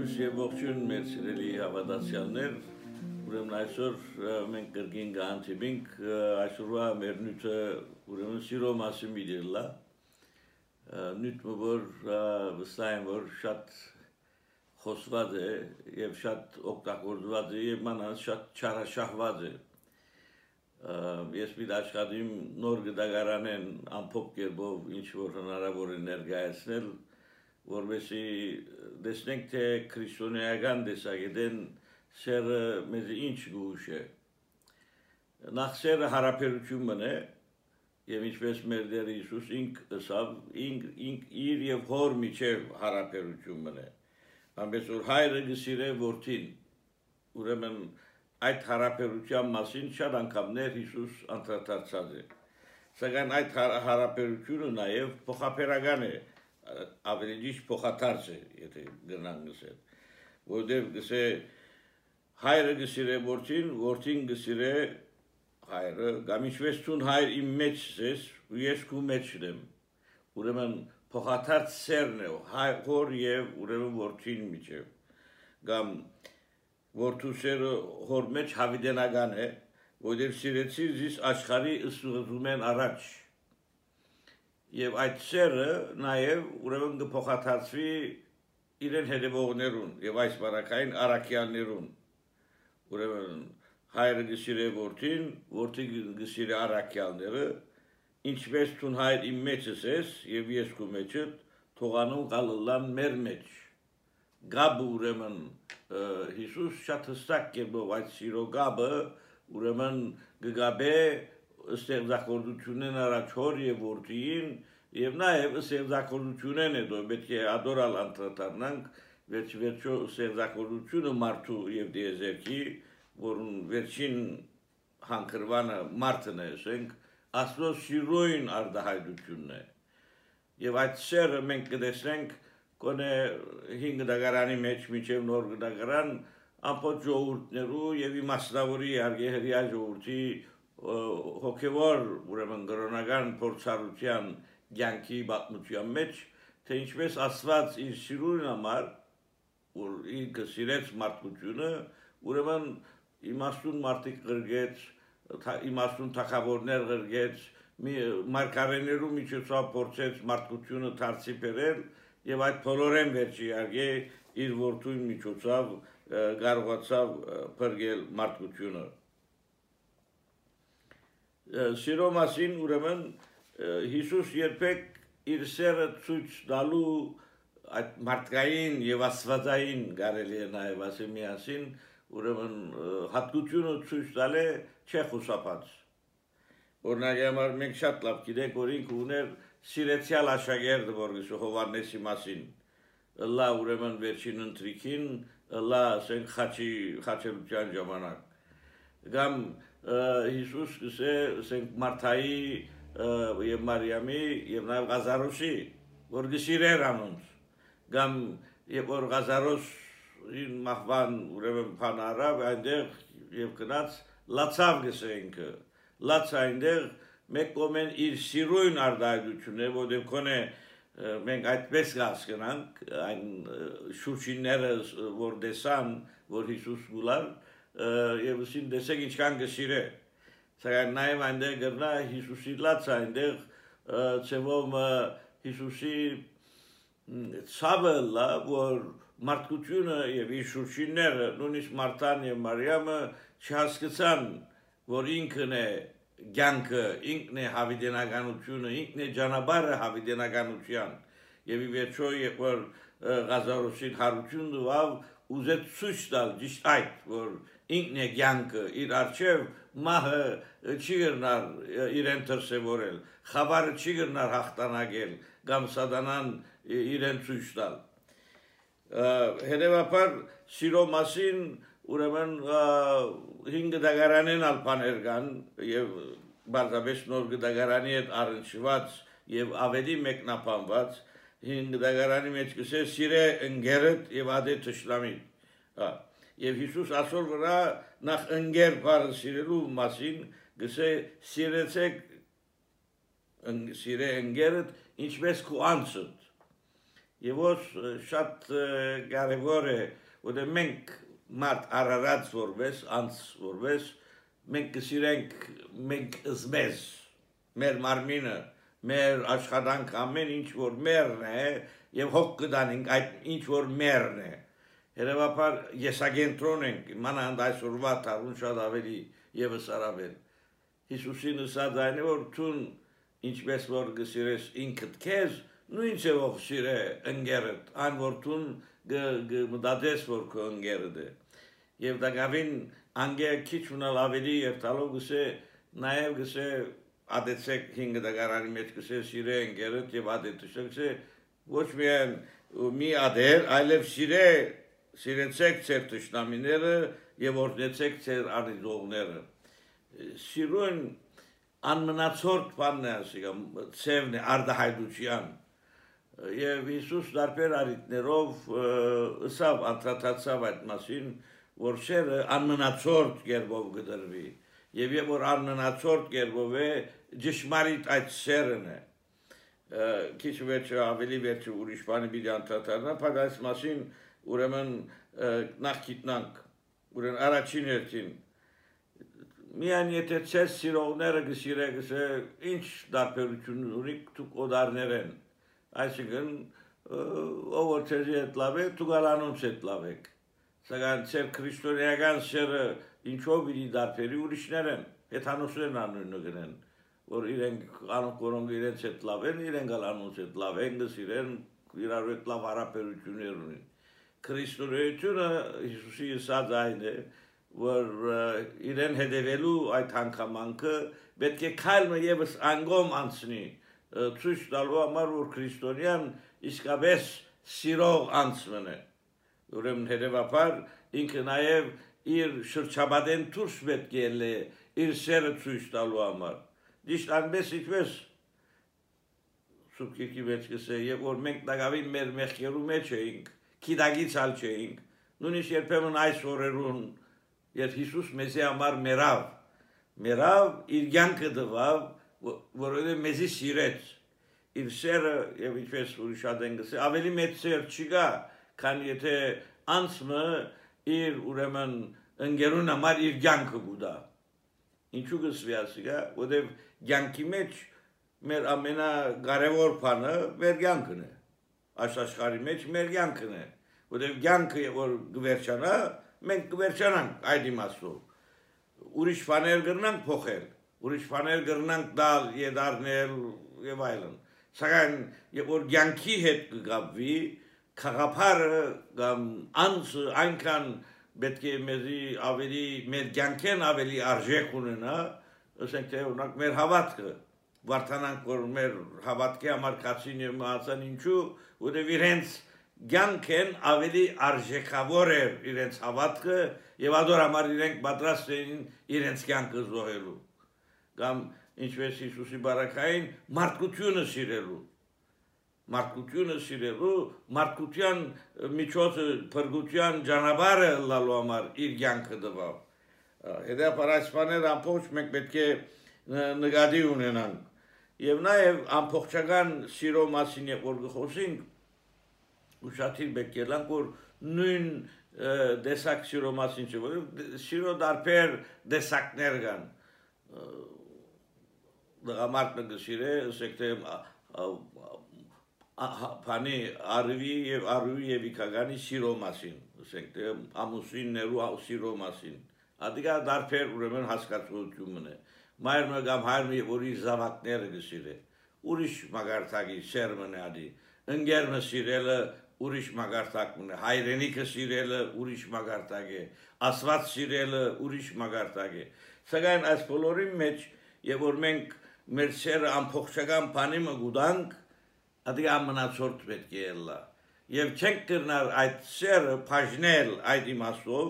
Լույս եւ ողջույն մեր սիրելի հավատացյալներ, ուրեմն այսօր մենք կրկին գանցենք այսօրվա մեր նյութը ուրեմն սիրո մասին միդելա նյութը որ վստահ եմ որ շատ խոսված է եւ շատ օգտագործված է եւ մանավանդ շատ չարաշահված է ես մի աշխատիմ նոր գդագարանեն ամփոփ կերպով ինչ որ հնարավոր է ներկայացնել որովհետեւ դեսնենք թե քրիստոնեական դեսագետեն սերը մեզ ինչ գուշ է նախ սերը հարաբերությունն է եւ ինչպես մեր Տեր Հիսուս ինք ասավ ինք իր եւ հոր միջև հարաբերությունն է ամենից որ հայրը գսիրե որդին ուրեմն այդ հարաբերության մասին շատ անգամներ Հիսուս անդրադարձած է սակայն այդ հարաբերությունը նաեւ փոխաբերական է ավելի ճիշտ փոխադարձ է եթե գնանք գսել որտեղ գսե հայրը գսիրե որդին որդին գսիրե հայրը կամ ինչպես ցուն հայր իմ մեջ ես ու ես քու մեջ եմ ուրեմն փոխադարձ սերն է հոր եւ ուրեմն որդին միջև կամ որդու սերը հոր մեջ հավիտենական է որտեղ սիրեցի զիս աշխարհի ըսուղում են առաջ Եվ այդ սերը նաև ուրեմն կփոխադարձվի իրեն հետևողներուն եւ այս բարակային առաքյալներուն ուրեմն հայրը գսիրե որդին որդին գսիրե առաքյալները ինչպես ցուն հայր իմ մեջս ես եւ ես քո մեջդ թողանուն գալլան մեր մեջ գաբը ուրեմն Հիսուս շատ հստակ կերպով այդ սիրո գաբը ուրեմն գգաբե ստեղծագործությունն առաջ հոր եւ որդին եւ նաեւ ստեղծագործությունն է դու պետք է ադորալ անդրադառնանք վերջո ստեղծագործությունը մարդու եւ դիեզերքի որն վերջին հանգրվանը մարդն է ասենք աստծո սիրոյին արդահայտությունն է եւ այդ սերը մենք կտեսնենք կոնե 5 դագարանի մեջ միջև նոր դագարան ամբողջ ժողովուրդներու եւ իմաստավորի արգեհրիա ժողովրդի հոգևոր ուրեմն գրոնական փորձառության ցանկի բացմության մեջ թե ինչպես ասված իր սիրուն համար որ ինքը սիրեց մարդկությունը ուրեմն իմաստուն մարդիկ գրգեց իմաստուն թակավորներ գրգեց մարգարեներու միջոցով փորձեց մարդկությունը դարձի բերել եւ այդ բոլորեն վերջի արգե իր որդուն միջոցով կարողացավ բրգել մարդկությունը Սիրո մասին ուրեմն Հիսուս երբեք իր սերը ցույց տալու այդ մարդկային եւ աստվածային կարելի է նաեւ ասել միասին ուրեմն հատկությունը ցույց տալ է չէ խուսափած օրինակ համար մենք շատ լավ գիտենք որ ինքը ուներ սիրեցյալ աշակերտ որ Հովհաննեսի մասին լա ուրեմն վերջին ընտրիքին լա ասենք խաչելության ժամանակ կամ Հիսուս ասենք Մարթայի եւ Մարիամի եւ նաեւ Ղազարոսի որ գսիրեր անոնց կամ եւ որ Ղազարոսին մահվան ուրեմն փանարավ այնտեղ եւ գնաց լացավ գսենք լաց այնտեղ մեկ կոմեն իր սիրույն արդայությունն է որտեղ կոնե մենք այդպես հասկանանք այն շուրջինները որ դեսան որ Հիսուս գուլար եւ ուսին դեսեք ինչքան գսիրե սակայն նաեւ այնտեղ գրնա Հիսուսի լաց այնտեղ ծևով Հիսուսի ցավը լա որ մարդկությունը եւ իր շուրջինները նույնիսկ Մարթան եւ Մարիամը չհասկացան որ ինքն է ցանկը ինքն է հավիտենականությունը ինքն է ճանապարհը հավիտենականության եւ ի վերջո երբ որ Ղազարոսին հարություն տվավ ուզեց ցույց տալ ճիշտ այդ որ ինքն է ցանկը իր արչեւ մահը չի գնար իրեն դրսևորել խավարը չի գնար հաղթանակել կամ սատանան իրեն ցույց տալ հետեւաբար սիրո մասին ուրեմն 5 դագարանեն ալբաներ կան եւ բարձրապես նոր դագարանի հետ առնչված եւ ավելի մեկնաբանված 5 դագարանի մեջ կսե սիրե ընկերդ եւ ադե թշնամի եւ Հիսուս ասոր վրա նախ ընկեր բառը սիրելու մասին գսե սիրեցեք սիրե ընկերդ ինչպես քո անձդ եւ ոս շատ կարևոր է որ մենք մարդ արարած որպես անց որպես մենք կսիրենք մենք զմեզ մեր մարմինը մեր աշխատանք ամեն ինչ որ մերն է եւ հոգ կդանենք այդ ինչ որ մերն է Երևաբար եսագենտրոն ենք մանավանդ այսօրվա տարուն շատ ավելի եւս արաբել Հիսուսին ասած այն է որ ցուն ինչպես որ գսիրես ինքդ քեզ նույն ձևով սիրե ընկերդ այն որ ցուն գմդադես որ քո ընկերդ է եւ դակավին անգե քիչ ունալ ավելի եւ տալով գսե նաեւ գսե ադեցեք 5 դագարանի մեջ գսե սիրե ընկերդ եւ ադեցեք գսե ոչ միայն մի ադեր այլև սիրեցեք ձեր տշնամիները եւ օրհնեցեք ձեր արիզողները Սիրուն անմնացորդ բանն է ասիկա ծևն է արդահայտության եւ Հիսուս դարբեր արիտներով ըսավ անդրադարձավ այդ մասին որ շերը անմնացորդ կերպով գդրվի եւ որ անմնացորդ կերպով է ճշմարիտ այդ սերն է քիչ վերջը ավելի վերջը ուրիշ բանի պիտի անդրադառնա բայց այս մասին ուրեմն նախ գիտնանք ուրեմն առաջին հերթին Միան եթե ցես սիրողները գսիրեք ինչ դարբերություն ունի դուք օդարներ են այսինքն ով ցեզի հետ լավ է դուք անոնց հետ լավ եք սակայն ցեր քրիստոնեական սերը ինչով իրի դարբերի ուրիշներ են հեթանոսներն անունը գնեն որ իրենք անոնք իրենց հետ լավ են իրենք անոնց հետ լավ են գսիրեն իրար հետ լավ հարաբերություններ ունեն քրիստոնեությունը Հիսուսի ասած այն է որ իրեն հետևելու այդ հանգամանքը պետք է քայլը եւս անգամ անցնի ցույց տալու համար որ քրիստոնյան իսկապես սիրող անցմն է ուրեմն հետևաբար ինքը նաեւ իր շրջապատեն դուրս պետք է լե իր սերը ցույց տալու համար դիշտ անպես ինչպես սուբկի մեջ կսե եւ որ մենք դակավին մեր մեղքերու մեջ էինք քիդագից ալ չէինք նույնիսկ երբեմն այս օրերուն Երբ Հիսուս մեզի համար մերավ իր կյանքը տվավ, որովհետև մեզի սիրեց, իր սերը եւ ինչպես ուրիշ ադեն գսե ավելի մեծ սեր չկա, քան եթե անցմը իր ուրեմն ընկերուն համար իր կյանքը գուտա։ Ինչու գսվի ասիկա, որովհետև կյանքի մեջ մեր ամենակարևոր բանը մեր կյանքն է։ Աշխարհի մեջ մեր կյանքն է, որովհետև կյանքը որ գվերջանա մենք կվերջանանք այդ իմաստով ուրիշ բաներ կրնանք փոխել ուրիշ բաներ կրնանք դալ եդարնել եւ այլն սակայն երբ որ կյանքի հետ կգաբվի խաղապարը կամ անձը այնքան պետք է մեզի ավելի մեր կյանքեն ավելի արժեք ունենա ասենք թե օրինակ մեր հավատքը վարդանանք որ մեր հավատքի համար կացին եւ մահացան ինչու որովհետեւ իրենց Գյանքեն ավելի արժեքավոր էր իրենց հավատքը եւ ադոր համար իրենք պատրաստ էին իրենց կյանքը զոհելու կամ ինչպես Հիսուսի բարակային մարդկությունը սիրելու մարդկության միջոցը փրկության ճանապարհը լալու համար իր կյանքը տվավ հետեւաբար այս բաները ամբողջ մենք պետք է նկատի ունենանք եւ նաեւ ամբողջական սիրո մասին որ խոսենք Ուշաթիր բեկելանք որ նույն դեսակ սիրո մասին չէ որ սիրո դարբեր դեսակներ կան դրամատը գսիրե ասեք թե բանի արվի եւ իքագանի սիրո մասին ասենք թե ամուսիններու սիրո մասին ադիգա դարբեր ուրեմն հասկացությունն է մայրը կամ հայրը որ իր զավակները գսիրե ուրիշ մագարտակի սերմն է ադի ընկերը սիրելը ուրիշ մագարտակն է հայրենիքը սիրելը ուրիշ մագարտակ է ասված սիրելը ուրիշ մագարտակ է սակայն այս բոլորի մեջ եւ որ մենք մեր սերը ամբողջական բանի մգուտանք ադի ամնացորդ պետք է լա եւ չենք կրնալ այդ սերը բաժնել այդ իմաստով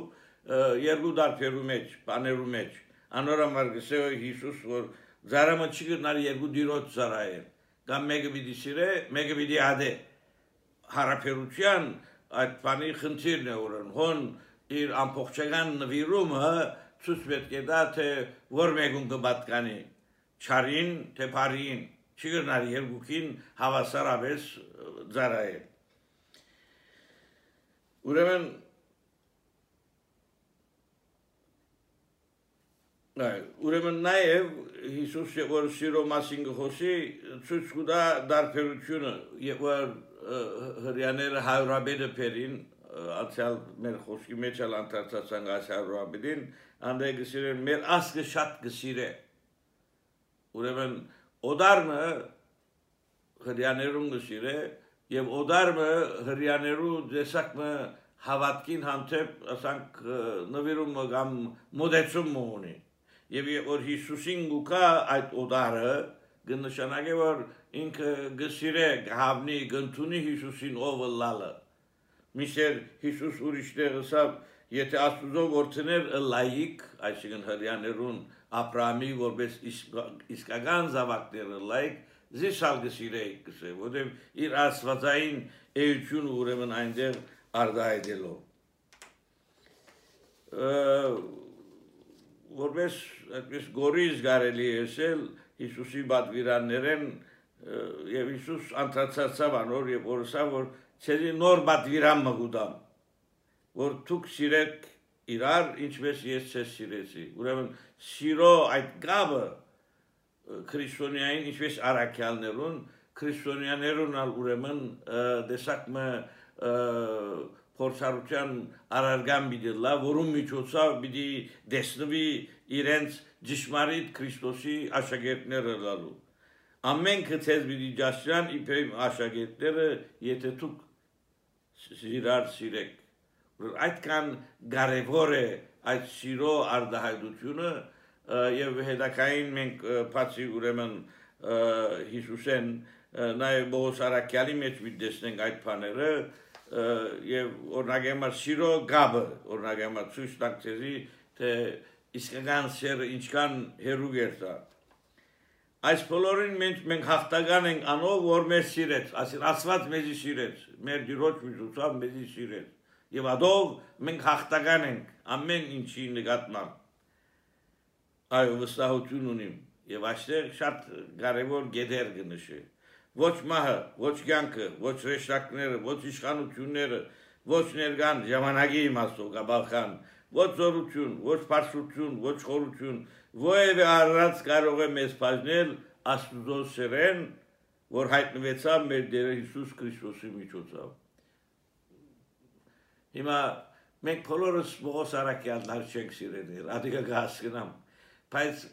երկու դարբերու մեջ բաներու մեջ անորոմար գսե Հիսուս որ զարամը չի կրնալ երկու դիրոց զարայել կամ մեկը պիտի սիրե մեկը պիտի ադե հարաբերության այդ բանի խնդիրն է ուրեմն հոն իր ամբողջական նվիրումը ցույց պետք է տա թե որ մեկուն կպատկանի չարին թե բարին չի գնալ երկուքին հավասարապես ծառայել ուրեմն նաև Հիսուսը որ սիրո մասին գխոսի ցույց կտա դարբերությունը եւ որ հрьяաները հարաբերը փերին ացյալ մեր խոսքի մեջ էլ անդրադարձան հարաբերին անդե գսիրեն մեր ասկը շատ գսիրե ուրեմն օդարմը հрьяաներուն գսիրե եւ օդարմը հрьяաներու դեսակը հավատքին հանդեպ ասանք նվիրում կամ մոդեցում ունի Եվ որ Հիսուսին գուկա այդ օդարը գնշանակե որ ինքը գսիրե գհավնի գնտունի Հիսուսին ով լալը Միշեր Հիսուս ուրիշներ ասավ եթե Աստուծո որդիներ լայիկ այսինքն հрьяաներուն Աբրահամի որպես իսկական զավակները լայիկ զիսալ գսիրե գսե որտեղ իր աստվածային էությունը ուրեմն այնտեղ արդայդելով որպես այդպես գորիզ գարելի էսել Հիսուսի բադվիրաններեն եւ Հիսուս անդրադարձավ անոր եւ որսավ որ ցերի նոր բադվիրան մգուդամ որ դուք սիրեք իրար ինչպես ես ցես սիրեցի ուրեմն սիրո այդ գաբը քրիստոնեային ինչպես արաքյալներուն քրիստոնյաներուն ալ ուրեմն դեսակմը փորձառության արարգան բիդելա, որում միջոցով պիտի դեսնվի իրենց ճշմարիտ Քրիստոսի աշակերտները լալու։ Ամենքը ցեզ պիտի ճաշրան իբրև աշակերտները, եթե դուք իրար սիրեք։ Այդքան կարևոր է այդ սիրո արտահայտությունը եւ հետակային մենք բացի ուրեմն Հիսուսեն նաեւ Պողոս արաքյալի մեջ դեսնենք այդ բաները եւ օրնագեմա սիրո գաբը օրնագեմա ցույց տանք ցեզի թե իսկական սերը ինչքան հերուկ է դա այս բոլորին մենք հաղթական ենք անով որ մեզ սիրեց ասել Աստված մեզի սիրեց մեր դիրոջ միջոցով մեզի սիրեց եւ ադով մենք հաղթական ենք ամեն ինչի նկատմամբ այո վստահություն ունիմ եւ այստեղ շատ կարեւոր գեդեր կնշի Ոչ մահը, ոչ կյանքը, ոչ ռեշտակները, ոչ իշխանությունները, ոչ ներկան ժամանակի իմաստով գաբալխան, ոչ զորություն, ոչ բարձրություն, ոչ խորություն, ովևէ առած կարող է մեզ բաժնել Աստուծո սերեն, որ հայտնվեցավ մեր Տեր Հիսուս Քրիստոսի միջոցով։ Հիմա մենք բոլորս Պողոս արաքյալներ չենք սիրել, ադիգա կհասկնամ, բայց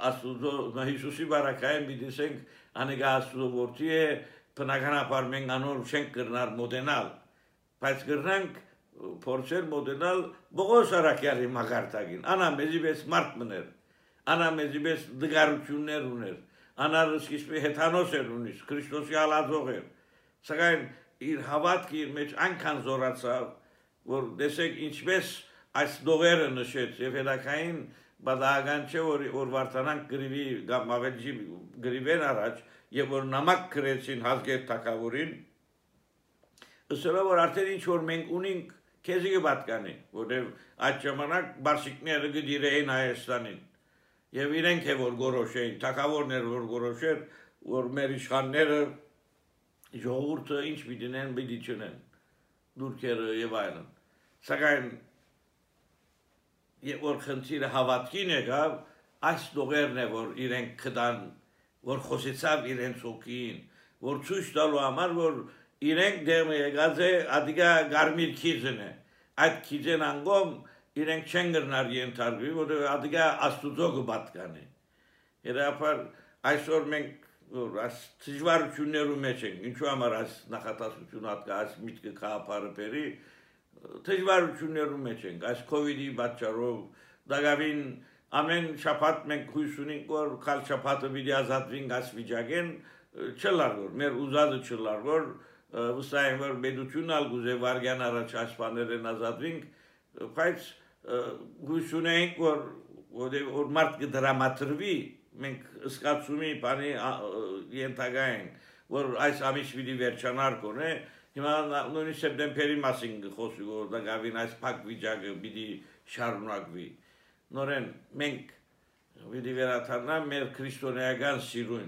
Աստուծո Հիսուսի բարակային բիդիսենք անեգա Աստուծո որդի է բնականաբար մենք անոր չենք կրնար մոդենալ բայց կրնանք փորձել մոդենալ Պողոս արաքյալի մագարտագին անա մեզի պես մարդ մներ անա մեզի պես դգարություններ ուներ անա սկիզբի հեթանոս էր ունիս Քրիստոսի ալածող էր սակայն իր հավատքը իր մեջ այնքան զորացավ որ տեսեք ինչպես այս դողերը նշեց եւ հետակային Բադագան չէ որ վարտանանք գրիվի կամ ավելի գրիվեն առաջ եւ որ նամակ գրեցին հազգեր թակավորին ըստ որ արդեն ինչ որ մենք ունենք քեզի կպատկանի որտեւ այդ ժամանակ բարսիկները գդիրեին Հայաստանին եւ իրենք է որ գորոշեին թակավորներ որ գորոշեր որ մեր իշխանները ժողովուրդը ինչ պիտինեն պիտի չնեն դուրքերը եւ այլն սակայն Եվ որ խնդիրը հավատքին եկավ, այս դողերն է, որ իրենք կդան, որ խոսեցավ իրենց հոգին, որ ցույց տալու համար, որ իրենք դեղը եկած է, ադիգա գարմիր քիզն է, այդ քիզեն անգոմ իրենք չեն գրնար ենթարկվի, որ ադիգա աստուծո կպատկանի։ Երապար այսօր մենք այս դժվարություններու մեջ ենք, ինչու համար այս նախատասությունը հատկա այս միտքը կապարը բերի, Դժվարություններու մեջ ենք, այս COVID-ի պատճառով, դակավին ամեն շաբաթ մենք հույս ունենք, որ քալ շաբաթը պիտի ազատվենք այս վիճակեն, չլար որ, մեր ուզածը չլար որ, վստահ եմ որ պետությունն ալ գուզե վարգյան առաջ այս բաներեն ազատվենք, բայց հույս ունենք որ մարդ կդրամատրվի, մենք ըսկացումի բանի ենթակա ենք, որ այս ամիս պիտի վերջանար կոնե, Հիմա նույնիսկ սեպտեմբերի մասին խոսի որ դակավին այս փակ վիճակը պիտի շարունակվի նորեն մենք պիտի վերադառնանք մեր քրիստոնեական սիրուն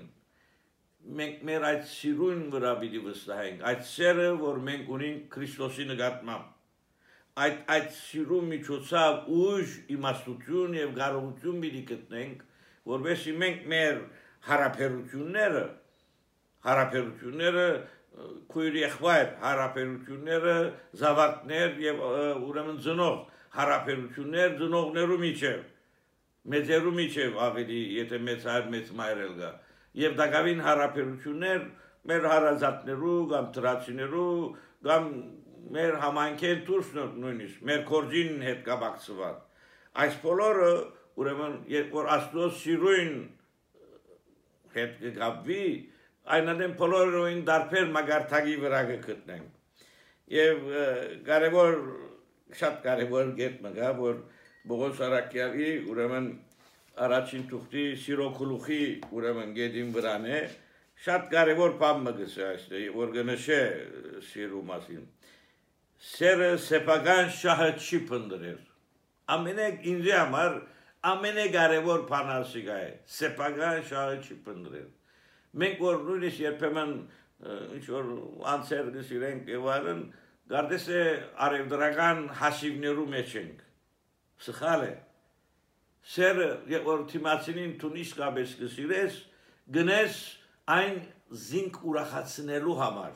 մենք մեր այդ սիրուն վրա պիտի վստահենք, այդ սերը, որ մենք ունենք Քրիստոսի նկատմամբ, այդ սիրու միջոցով ուժ, իմաստություն եւ կարողություն պիտի գտնենք, որովհետեւ մենք մեր հարաբերությունները քույր եղբայր հարաբերությունները զավակներ եւ ուրեմն ծնող հարաբերություններ ծնողներու միջեւ մեծերու միջև ավելի եթե մեծ հայր մեծ մայր էլ գա եւ դակավին հարաբերություններ մեր հարազատներու կամ դրացիներու կամ մեր համայնքեն դուրս նույնիսկ մեր կորձին հետ կապակցված այս բոլորը ուրեմն երբ որ Աստծո սիրուն հետ կգաբվի այնադեմ բոլորին դարբեր մագարտակի վրա կգտնենք եւ շատ կարեւոր կետ մգա որ Բողոս Արաքյալի ուրեմն առաջին թուղթի սիրո գլուխի ուրեմն գեդին վրան է շատ կարևոր բան մգս է այստեղ որ գնշե սիրո մասին սերը սեփական շահը չի փնտրել ամենեք ինձ համար ամենակարևոր բանը ասիկա է սեփական շահը չի փնտրել մենք որ նույնիսկ երբեմն ինչ որ անցեր գսիրենք եւ այլն գարդես է արևդրական հաշիվներու մեջ ենք Սխալ է, սերը, որ թիմացինին տուն իսկապես կսիրես, գնես այն զինք ուրախացնելու համար,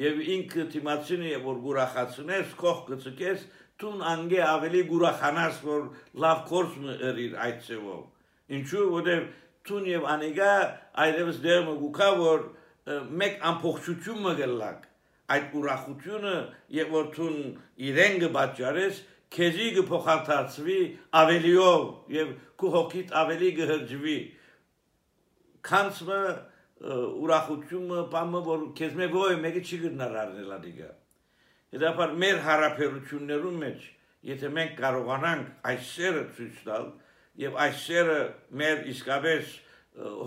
և ինքը թիմացինը, որ ուրախացնես, կող կծկես, տուն անգե ավելի ուրախանաս, որ լավ կորս մը էրիր այդ ծևով, ինչու, որև տուն և անիգա այդևս դեղմը գուկա, որ մեկ ամփոխչություն մը գլակ, այդ ուրախությունը, և որ տուն իրեն գբաճարես, Քեզի կփոխանցվի ավելիով եւ քո հոգիդ ավելի կհրջվի քանցը ուրախությունը բամը որ քեզ մեգոյ մեգի չի գնար առնել ադիգա Հետապար մեր հարաբերություններում մեջ եթե մենք կարողանանք այս սերը ցույց տալ եւ այս սերը մեր իսկապես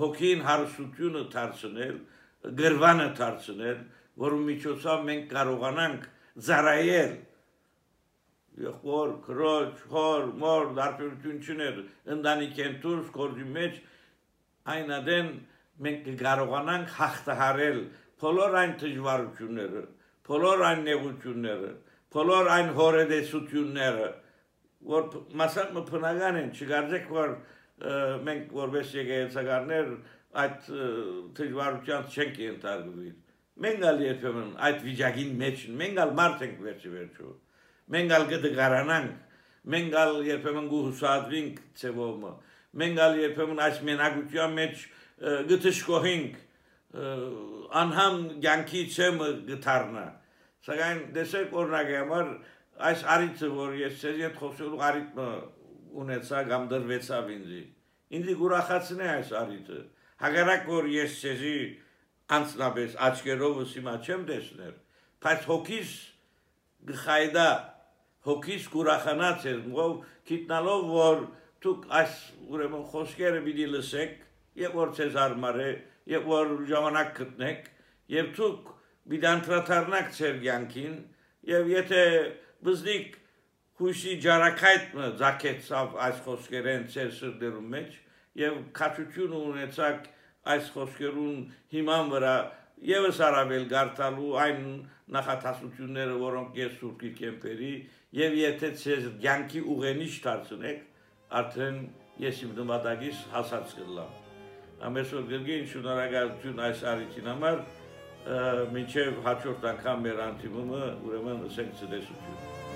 հոգին հարստությունը դարձնել գրվանը դարձնել որու միջոցով մենք կարողանանք ծառայել Եղբոր, քրոջ, հոր, մոր, դարբերություն չուներ, ընտանիքեն դուրս, գործի մեջ, այն ադեն մենք կկարողանանք հաղթահարել բոլոր այն դժվարությունները, բոլոր այն նեղությունները, բոլոր այն հորետեսությունները, որ մասամբ բնական են, չգարձեք, որ մենք որպես եկեղեցականներ այդ դժվարության չենք ենթարկվի։ Մենք ալ երբեմն այդ վիճակին մեջ, մենք ալ մարդ ենք վերջի Մենք ալ կդգարանանք, մենք ալ երբեմն գուհուսադրինք ծևոմը, մենք ալ երբեմն այս մենակության մեջ գտշկոհինք, անհամ գյանքի ծեմը գտարնա, սակայն դեսեք օրնակ համար այս արիցը, որ ես ծեզ ետ խոսելու արիթմը ունեցա կամ դրվեցավ ինձի գուրախացն է այս արիթը, հագարակ որ ես ծեզի անցնապես աչկերովս հիմա չեմ դեսներ, բայց հոգիս գխայդա Հոգիս կուրախանած էր, գիտնալով, որ դուք այս ուրեմն խոսքերը պիտի լսեք, եւ որ ցեզ արմար է, եւ որ ժամանակ գտնեք, եւ դուք պիտի անդրադառնաք ձեր կյանքին, եւ եթե բզնիկ հույսի ջարակայթը ձակեցավ այս խոսքերեն ձեր սրտերում մեջ, եւ քաչություն ունեցաք այս խոսքերուն հիման վրա Եվս արավել գարտալու այն նախատասությունները, որոնք ես սուրկի կեմպերի, և եթե ձեզ կյանքի ուղենիշ դարձնեք, արդեն ես իմ նպատակիս հասած կլամ։ Ամեսօր գրգին շնորհակալություն այս արիթին համար, մինչև հաջորդ անգամ մեր անդիմումը ուրեմն ասենք ցտեսություն։